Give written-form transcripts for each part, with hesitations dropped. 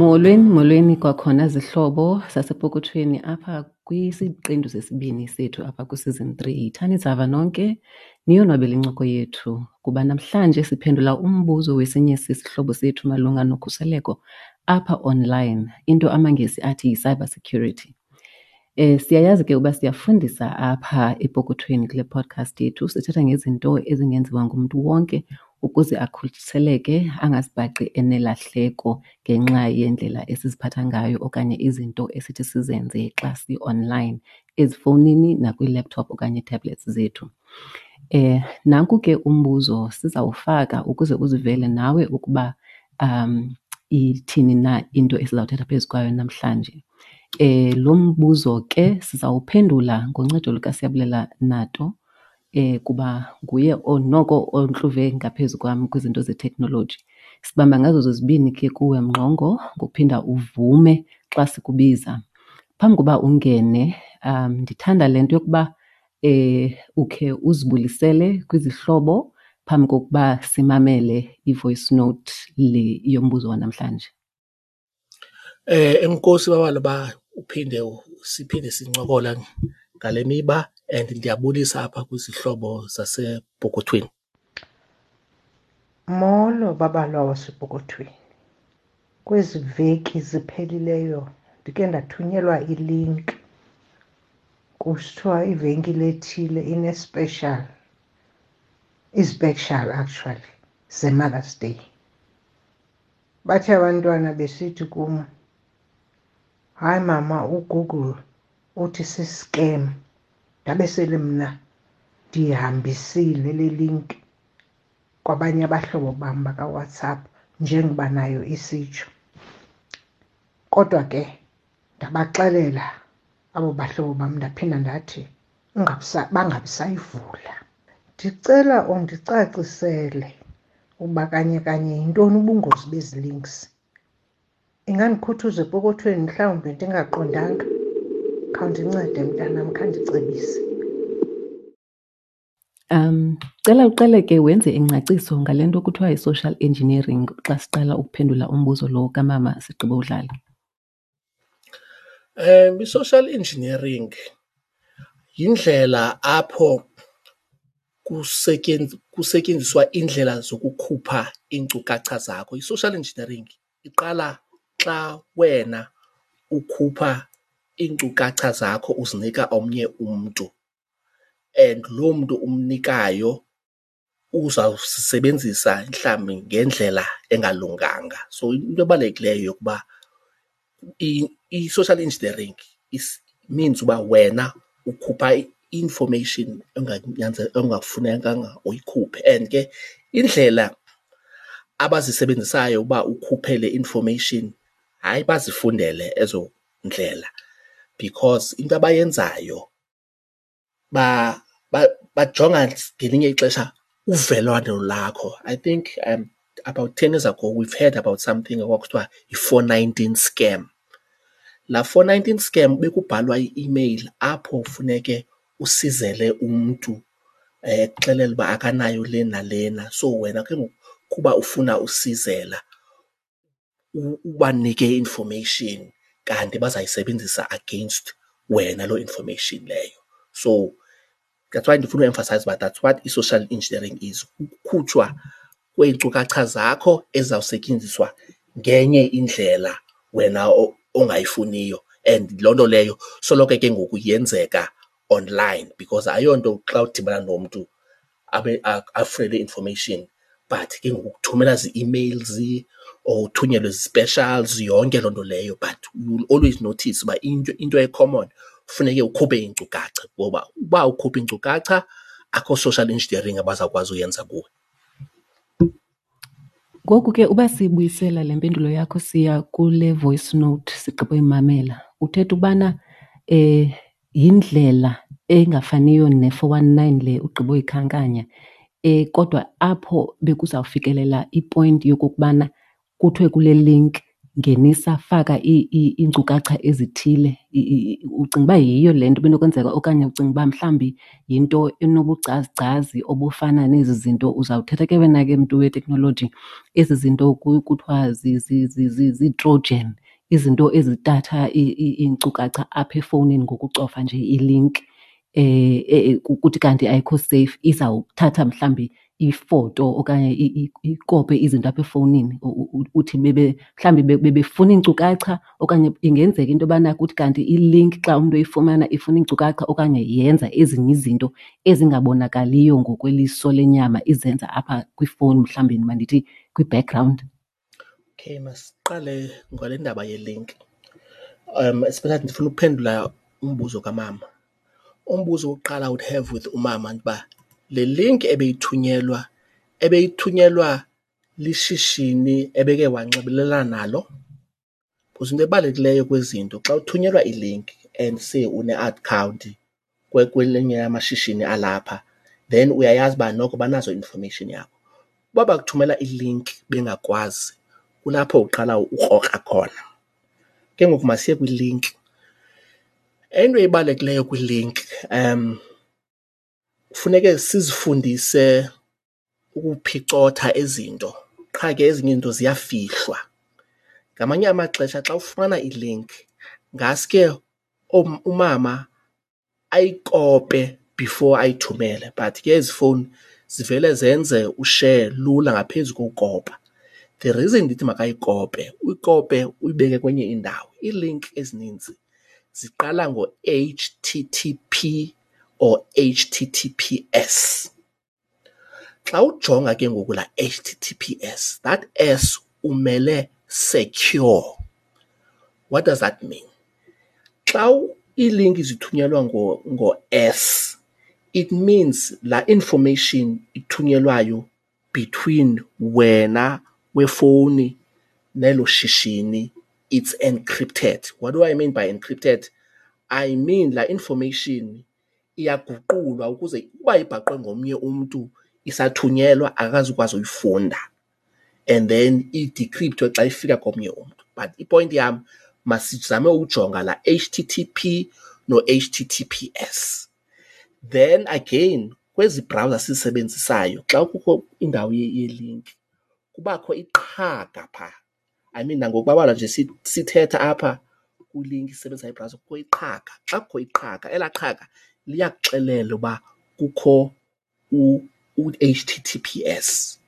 Molweni, molweni kwakhona zihlobo zasepokothweni apha kwisiqendu sesibini sethu apha kwi-season 3. Yithani zava nonke niyonwabele incoko yethu kuba namhlanje siphendula umbuzo wesinye sesihlobo sethu malunga nokhuseleko apha online, into amaNgesi athi yi-cyber security. Siyayazi ke uba siyafundisa apha epokothweni kule podcast yethu, sithetha ngezinto ezingenziwa ngumntu wonke ukuze akhuseleke angazibhaqi enelahleko ngenxa yendlela esiziphatha ngayo okanye izinto esithi sizenze xa si-online ezifowunini nakwii-laptop okanye ii-tablets zethu. Nanku ke umbuzo sizawufaka ukuze uzivele nawe ukuba ithini na into esizawuthetha phezu kwayo namhlanje. Lo mbuzo ke sizawuphendula ngoncedo lukaSiyabulela Nato kuba nguye noko ontluve ngaphezu kwam kwizinto zeteknoloji. Sibamba ngazo zozibini ke kuwe Mngqongo ngokuphinda uvume xa sikubiza. Phambi koba ungene ndithanda le nto yokuba ukhe uzibulisele kwizihlobo phambi kokuba simamele i-voice note le yombuzo wanamhlanje. Enkosi babala uba uphinde siphinde sincokola ngale miba and ndiyabulisa apha kwizihlobo zasepokothweni. Molo babalwa wasepokothweni. Kwezi veki ziphelileyo ndike ndathunyelwa i-link kusithiwa ivenkile ethile ine-special, izi-special actually zeMother's Day. Bathe abantwana besithi kum, hayi mama, uGoogle uthi si-scam. Ndabe sele mna ndiyihambisile le link kwabanye abahlobo bam bakaWhatsApp njengoba nayo isitsho. Kodwa ke ndabaxelela abo bahlobo bam, ndaphinda ndathi bangabisayivula. Ndicela undicacisele uba kanye kanye yintoni ubungozi bezi links. Ingandikhuthuza epokothweni mhlawumbi ndingaqondanga. Khawundincede mntanam, khandicebise. Cela uqale ke wenze ingcaciso ngale nto kuthiwa yi-social engineering xa siqala ukuphendula umbuzo lo kamama sigqiba udlala. I-social engineering yindlela apho kusetyenziswa iindlela zokukhupha iinkcukacha zakho. I-social engineering iqala xa wena ukhupha iinkcukacha zakho uzinika omnye umntu and loo mntu umnikayo uzawusebenzisa mhlawumbi ngendlela engalunganga. So into ebalulekileyo yokuba i-social engineering is means uba wena ukhupha i-information engafunekanga uyikhuphe. And ke indlela abazisebenzisayo uba ukhuphe le information, hayi bazifundele ezo ndlela, because into abayenzayo bajonga ngelinye ixesha uvelwano lakho. I think about 10 years ago we've heard about something okwakuthiwa yi-419 scam. Laa 419 scam bekubhalwa i-email apho funeke usizele umntu ekuxelela uba akanayo le nalena. So wena ke ngoku kuba ufuna usizela ubanike i-information kanti bazayisebenzisa against wena loo information leyo. So that's why ndifuna u-emphasize uba that's what i-social engineering is, ukukhutshwa kweenkcukacha zakho ezizawusetyenziswa ngenye indlela wena ongayifuniyo. And loo nto leyo soloko ke ngoku yenzeka online because ayonto xa udibana nomntu abe afune le information, but ke ngoku kuthumela zii-emails or uthunyelwe zi-specials, yonke loo nto leyo. But you will always notice uba into e-common funeke ukhuphe iinkcukacha, ngoba uba ukhupha iinkcukacha akho social engineering abazawukwazi uyenza kuwe. Ngoku ke uba sibuyisela le mpendulo yakho siya kule voice note sigqiba uyimamela, uthetha ubana yindlela engafaniyo ne-419 le ugqiba uyikhankanya, kodwa apho bekuzawufikelela i-point yokokubana kuthiwe kule link Ngenisa, faka iinkcukacha ezithile. Ucinga uba yiyo le nto ibinokwenzeka okanye ucinga uba mhlawumbi yinto enobugcazigcazi obufana nezi zinto uzawuthetha ke wena ke mntu weteknoloji, ezi zinto kuthiwa zii-trojan, izinto ezitatha iinkcukacha apha efowunini ngokucofa nje ilinki kuthi kanti ayikho seyifu, izawuthatha mhlawumbi ifoto okanye ikope izinto apha efowunini. Uthi mhlawumbi bebefuna iinkcukacha okanye ingenzeka into yobana kuthi kanti ilinki xa umntu eyifumana ifuna iinkcukacha okanye yenza ezinye izinto ezingabonakaliyo ngokweliso lenyama izenza apha kwifowuni, mhlawumbi mandithi kwi-background. Okay, masiqale ngale ndaba yelinki. Especially ndifuna ukuphendula umbuzo kamama. Umbuzo wokuqala I would have with umama uba le link ebeyithunyelwa, ebeyithunyelwa lishishini ebeke wanxibelelana nalo? Because into ebalulekileyo kwezi zinto xa uthunyelwa ilinki and say une-akhawunti kwelinye lamashishini alapha, then uyayazi uba noko banazo i-information yakho. Uba bakuthumela ilinki bengakwazi, kulapho uqala ukrokra khona. Ke ngoku masiye kwilinki. Into ebalulekileyo kwilinki kufuneke sizifundise ukuphicotha izinto, qha ke ezinye izinto ziyafihlwa. Ngamanye amaxesha xa ufumana ilinki ngaske umama ayikope before ayithumele, but ke ezi fowuni zivele zenze ushare lula ngaphezu kokukopa. The reason ndithi makayikope, uyikope uyibeke kwenye indawo. Iilinki ezininzi ziqala ngo-H T T P or H T T P S. Xa ujonga ke ngoku laa H T T P S, that S umele secure. What does that mean? Xa iilinki zithunyelwa ngo-S, it means laa information ithunyelwayo between wena wefowuni nelo shishini, it's encrypted. What do I mean by encrypted? I mean laa information iyaguqulwa ukuze uba ibhaqwe ngomnye umntu isathunyelwa akazukwazi uyifunda, and then idecryptwe xa ifika komnye umntu. But ipoint yam, masizame ujonga la HTTP no HTTPS. Then again, kwezi browser sizisebenzisayo xa kukho indawo ye-link kubakho iqhaga phaa. I mean, nangokubabalwa nje sithetha apha kwilink isebenzisa ibrowser kukho iqhaga. Xa kukho iqhaga, elaa qhaga liyakuxelela uba kukho u-HTTPS.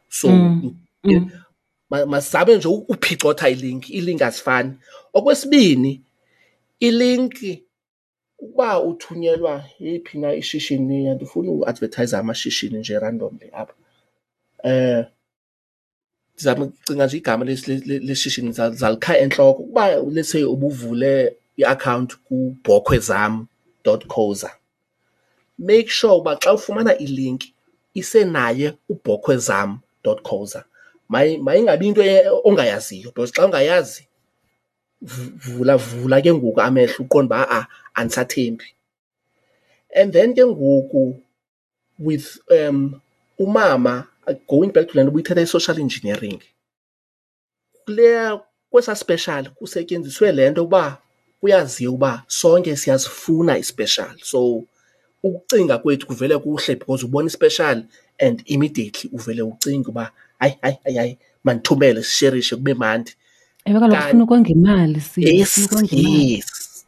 So masizabe nje uphicotha ilink, iilink azifani. Okwesibini, ilink ukuba uthunyelwa yeyiphi na ishishini, andifuni uadverthayiza amashishini nje randomly apha. Ndizama ukucinga nje igama leshishini zalikha entloko. Ukuba let's say ubuvule iakhawunti kubhokhwezam dot co za, make sure uba xa ufumana ilinki isenaye ubhokhwezam dot co za. Mayingabi into ongayaziyo, because xa ungayazi vula ke ngoku amehlo uqonde uba a-a andisathembi. And then ke ngoku with umama, going back to le nto ubuyithetha i-social engineering, kuleya kwesa special kusetyenziswe le nto uba kuyaziwa uba sonke siyazifuna i-special. So ukucinga kwethu kuvele kuhle because ubona i-special and immediately uvele ucinge uba hayi, hayi, hayi, hayi, mandithumele sisherishe kube mandi. Ewe, kaloku ufuna ukonga imali, sisi, Yes, ufuna ukonga imali. yes,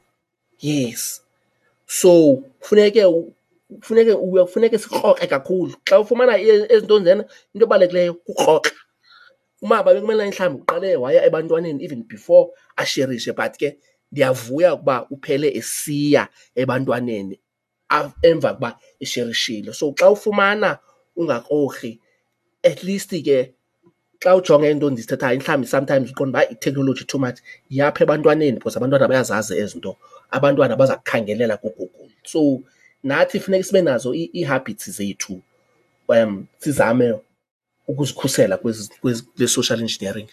yes. So kufuneke sikroxe kakhulu. Xa ufumana ezi nto njena, into ebalulekileyo kukroxa. Umama bekumele mhlawumbi uqale waya ebantwaneni even before asherishe, but ke ndiyavuya ukuba uphele esiya ebantwaneni emva kokuba esherishile. So xa ufumana ungakrokri, at least ke xa ujonge into ndizithethayo, mhlawumbi sometimes uqonda uba i-technology too much, yapha ebantwaneni because abantwana bayazazi ezi nto, abantwana baza kukhangelela kuGoogle. So nathi funeka sibe nazo ii-habits zethu, sizame ukuzikhusela kule social engineering.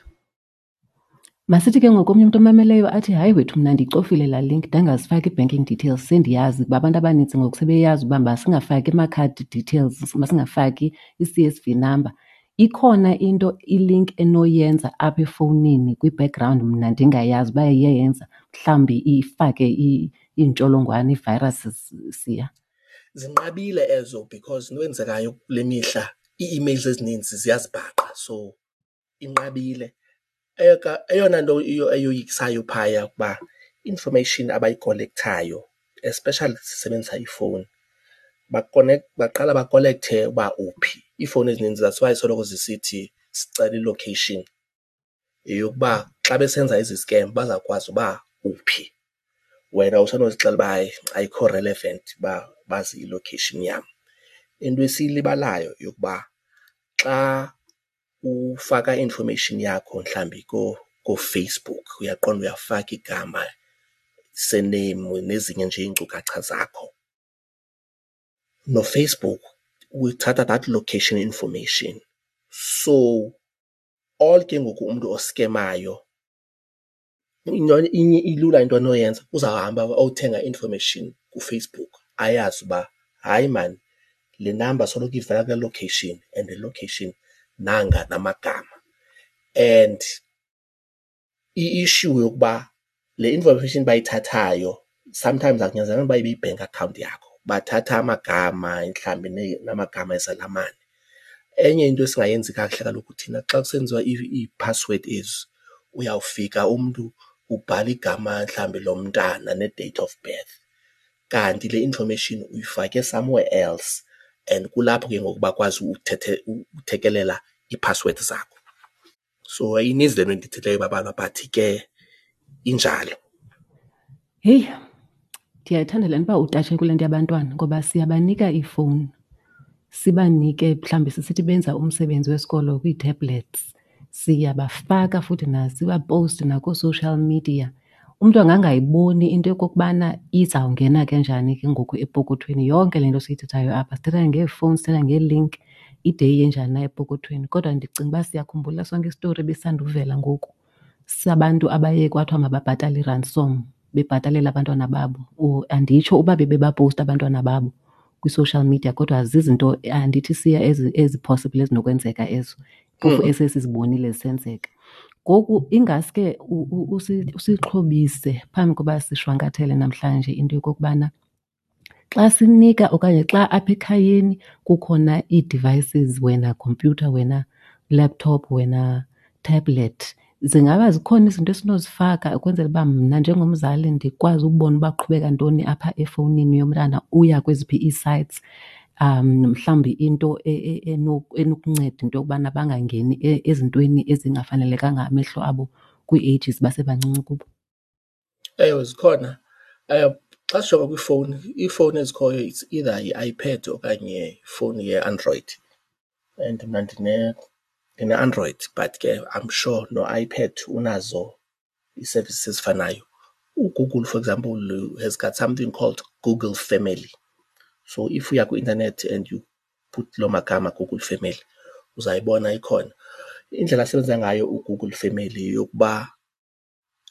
Masithi ke ngoku omnye umntu omameleyo athi, hayi wethu, mna ndiyicofile laa link, ndangazifaki ii-banking details, sendiyazi kuba abantu abanintsi ngoku sebeyazi uba masingafaki ama-card details, masingafaki i-C S V number. Ikhona into i-link enoyenza apha efowunini kwi-background mna ndingayazi uba iye yenza, mhlawumbi ifake iintsholongwane, ii-viruses siya? Zinqabile ezo because into eyenzekayo kule mihla ii-emails ezininzi ziyazibhaqa, so inqabile. Eyona nto eyoyikisayo phaya ukuba i-information abayikolekthayo, especially sisebenzisa iifowuni, baqala bakolekthe uba uphi. Iifowuni ezininzi that's why soloko zisithi sicela i-location, yeyokuba xa besenza ezi scam bazawukwazi uba uphi. Wena usenozixelela uba hayi ayikho relevant uba bazi i-location yam. Into esiyilibalayo yokuba xa ufaka i-information yakho mhlawumbi kooFacebook, uyaqonda uyafaka igama, surname nezinye nje iinkcukacha zakho. NoFacebook uthatha that location information. So all ke ngoku umntu oskemayo into inye ilula into anoyenza, uzawuhamba awuthenga i-information kuFacebook ayazi uba hayi maan le number soloko ivela kule location and le location nanga namagama. And i-issue yokuba le information bayithathayo sometimes akunyanzelekanga uba ibe yi-bank account yakho, bathatha amagama mhlawumbi namagama ezalamane. Enye into esingayenzi kakuhle kaloku thina xa kusenziwa iiphasiwedi ezi, uyawufika umntu ubhala igama mhlawumbi lomntana ne-date of birth kanti le information uyifake somewhere else and kulapho ke ngoku bakwazi uthekelela iiphasiwedi zakho. So ininzi le nto ndiyithethileyo Babalwa, but ke injalo. Heyi, ndiyayithanda le nto uba utatshe kule nto yabantwana ngoba siyabanika iifowuni, sibanike mhlawumbi sisithi benza umsebenzi wesikolo kwii-tablets, siyabafaka futhi sibapowuste nakoo-social media. Umntu angangayiboni into yokokubana izawungena ke njani ke ngoku epokothweni yonke le nto siyithethayo apha. Sithetha ngeefowuni, sithetha ngee-link, ide iye njani na epokothweni. Kodwa ndicinga uba siyakhumbula sonke isitori ebesisanduvela ngoku sabantu abaye kwathiwa mababhatale i-ransom bebhatalela abantwana babo. Or anditsho uba bebebapowusta abantwana babo kwi-social media, kodwa zizinto andithi siya ezi-possible ezinokwenzeka ezo, phofu esesizibonile zisenzeka. Ngoku ingaske usixhobise phambi koba sishwankathele namhlanje into yokokubana xa sinika okanye xa apha ekhayeni kukhona ii-devices, wena khompyutha, wena laptop, wena tablet, zingaba zikhona izinto esinozifaka ukwenzela uba mna njengomzali ndikwazi ukubona uba kuqhubeka ntoni apha efowunini yomntana, uya kweziphi ii-sites, mhlawumbi into enokunceda into yokubana bangangeni ezintweni ezingafanelekanga amehlo abo kwii-ages basebancinci kubo? Ewe, zikhona. Xa sijonga kwiifowuni, iifowuni ezikhoyo it's either yi-iPad okanye ifowuni yeAndroid, and mna ndine-Android but ke I'm sure noiPad unazo ii-services ezifanayo. UGoogle, for example, has got something called Google Family. So if uya kwi-intanethi and you put loo magama Google Family, uzayibona ikhona. Indlela asebenza ngayo uGoogle Family yeyokuba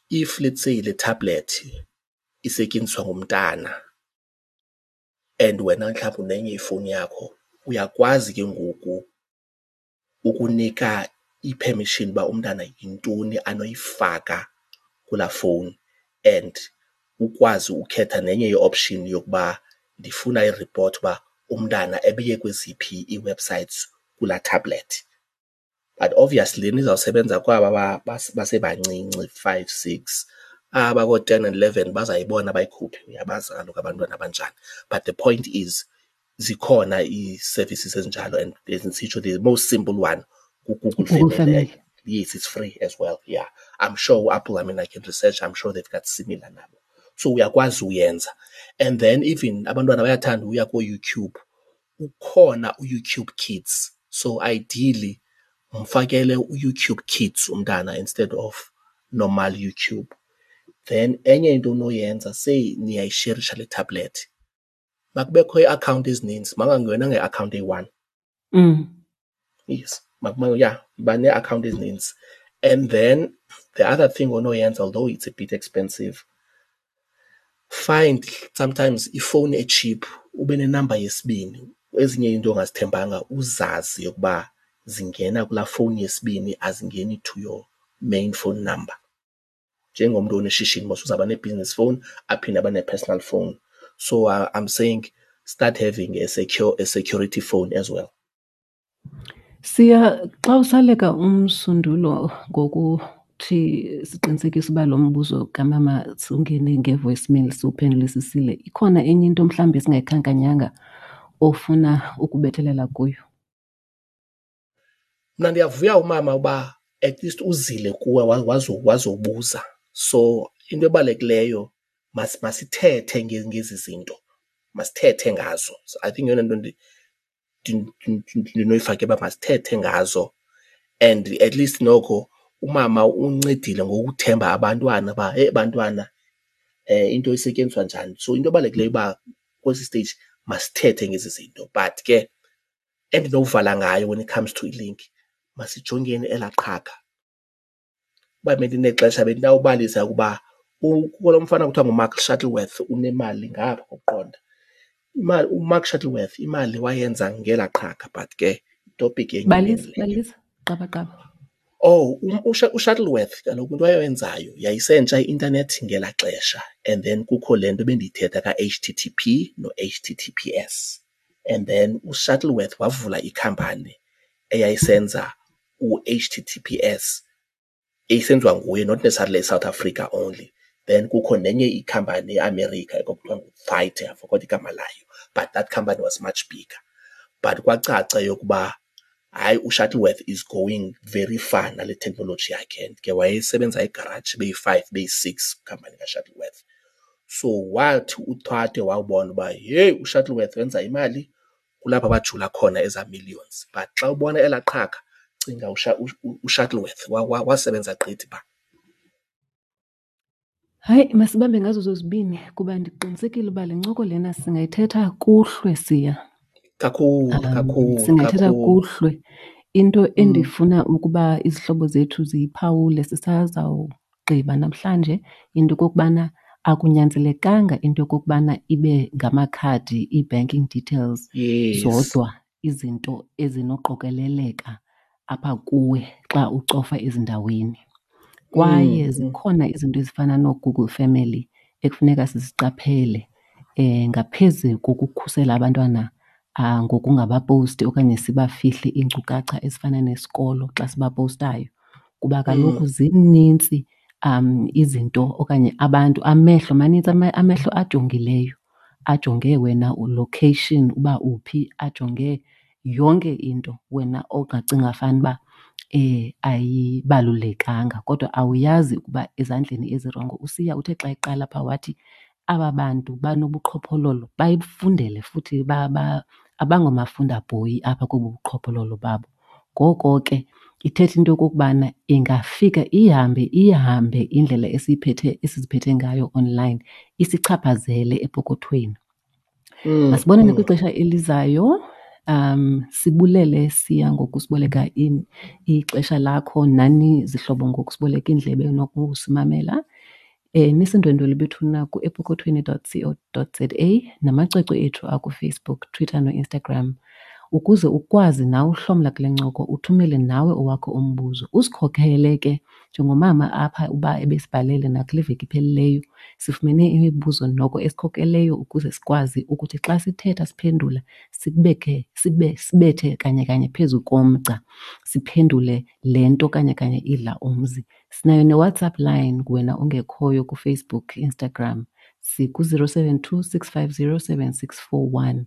if let's say le tablet isetyenziswa ngumntana and wena mhlawumbi unenye ifowuni yakho, uyakwazi ke ngoku ukunika i-permission uba umntana yintoni anoyifaka kulaa fowuni and ukwazi ukhetha nenye i-option yokuba ndifuna i-report uba umntana ebeye kweziphi ii-websites kulaa tablet. But obviously lena izawusebenza kwaba basebancinci, 5, 6, aba koo-10 and 11 bazayibona bayikhuphe, uyabazi kaloku abantwana abanjani. But the point is zikhona ii-services ezinjalo and ndisitsho the most simple one nguGoogle Google Family. Family. Yes, it's free as well. Yeah, I'm sure Apple, I mean, I can research, I'm sure they've got similar nabo. So uyakwazi uyenza. And then even abantwana bayathanda uya kooYouTube, ukhona uYouTube Kids. So ideally mfakele uYouTube Kids umntana instead of normal YouTube. Then enye into onoyenza, say niyayisherisha le tablet, makubekho ii-akhawunti ezininzi, makungangenwa ngeakhawunti eyi-one. Yes, yeah, yiba nee-akhawunti ezininzi. And then the other thing onoyenza, although it's a bit expensive, find sometimes ifowuni e-cheap ube nenamba yesibini. Ezinye iinto ongazithembanga uzazi yokuba zingena kulaa fowuni yesibini, azingeni to your main phone number. Njengomntu oneshishini mos uzawuba ne-business phone aphinde abe ne-personal phone. So I'm saying start having a secure a security phone as well. Siya, xa usaleka umsundulo ngokuthi siqinisekise uba lo mbuzo kamama siwungene nge-voicemail siwuphendulisisile, ikhona enye into mhlawumbi esingayikhankanyanga ofuna ukubethelela kuyo? Mna ndiyavuya umama uba at least uzile kuwe wazobuza. So into ebalulekileyo masithethe ngezi zinto, masithethe ngazo. So I think yeyona nto ndinoyifaka uba masithethe ngazo and at least noko umama uncedile ngokuthemba abantwana uba heyi bantwana into isetyenziswa njani. So into ebalulekileyo uba kwesi stage masithethe ngezi zinto. But ke endinokuvala ngayo when it comes to ilinki, masijongeni elaa qhaga. Uba bendinexesha bendinawubalisa ukuba kukho lo mfana kuthiwa nguMark Shuttleworth unemali ngapha kokuqonda. Imali uMark Shuttleworth imali wayenza ngelaa qhaga, but ke itopic yenye. Balisa, balisa, qaba qaba. Oh, uShuttleworth kaloku into ayenzayo yayisentsha i-intanethi ngelaa xesha, and then kukho le nto bendiyithetha ka-H_T_T_P no-H_T_T_P_S. And then uShuttleworth wavula ikhampani eyayisenza u-H_T_T_P_S, eyisenziwa nguye, not necessarily eSouth Africa only. Then kukho nenye ikhampani eAmerica ekwakuthiwa nguThite, I forgot igama layo, but that company was much bigger. But kwacaca yokuba hayi, uShuttleworth is going very far nale technology yakhe, and ke wayesebenza egaraji beyi-5 beyi-6 khampani kaShuttleworth. So wathi uThate wawubona uba heyi, uShuttleworth wenza imali, kulapho bajula khona eza millions. But xa ubona elaa qhaga, cinga uShuttleworth wasebenza gqithi phaa. Hayi, masibambe ngazo zozibini kuba ndiqinisekile uba le ncoko lena singayithetha kuhlwe, Siya. Kakhulu, kakhulu, Singayithetha kakhulu. kuhlwe. Into endifuna ukuba izihlobo zethu ziyiphawule sisazawugqiba namhlanje, into okokubana akunyanzelekanga into yokokubana ibe ngamakhadi, ii-banking details zodwa izinto ezinoqokeleleka apha kuwe xa ucofa ezindaweni. Kwaye zikhona izinto ezifana nooGoogle Family ekufuneka siziqaphele ngaphezu kokukhusela abantwana ngokungabaposti okanye sibafihle iinkcukacha ezifana nesikolo xa sibapostayo. Kuba kaloku zinintsi izinto okanye abantu, amehlo manintsi, amehlo ajongileyo, ajonge wena location uba uphi, ajonge yonke into wena ongacinga fanuba ayibalulekanga, kodwa awuyazi ukuba ezandleni ezirongo. USiya uthe xa eqala phaa wathi aba bantu banobuqhophololo bayifundele futhi abangomafundabhoyi apha kobu buqhophololo babo. Ngoko ke ithetha into yokokubana ingafika ihambe ihambe indlela esiziphethe ngayo online isichaphazele epokothweni. Masibonane kwixesha elizayo. Sibulele Siya ngokusiboleka ixesha lakho, nani zihlobo ngokusiboleka iindlebe nokusimamela. Nisindwendwele bethuna ku-epokothweni dot co dot za namacwecwe ethu akuFacebook, Twitter noInstagram ukuze ukwazi nawe uhlomla kule ncoko, uthumele nawe owakho umbuzo. Usikhokhele ke njengomama apha uba ebesibhalele nakule veki iphelileyo, sifumene imibuzo noko esikhokeleyo ukuze sikwazi ukuthi xa sithetha siphendula sibethe kanye kanye phezu komgca, siphendule le nto kanye kanye idla umzi. Sinayo neWhatsApp line wena ongekhoyo kuFacebook, Instagram, siku-zero seven two six five zero seven six four one.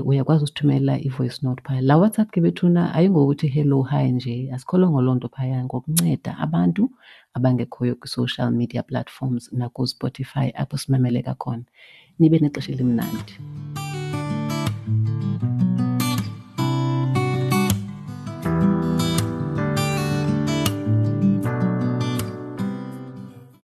Uyakwazi usithumela i-voice note phaya. La WhatsApp ke bethuna ayingokuthi hello hi nje, asikholwa loo nto phaya, ngokunceda abantu abangekhoyo kwi-social media platforms nakuSpotify apho simameleka khona. Nibe nexesha elimnandi.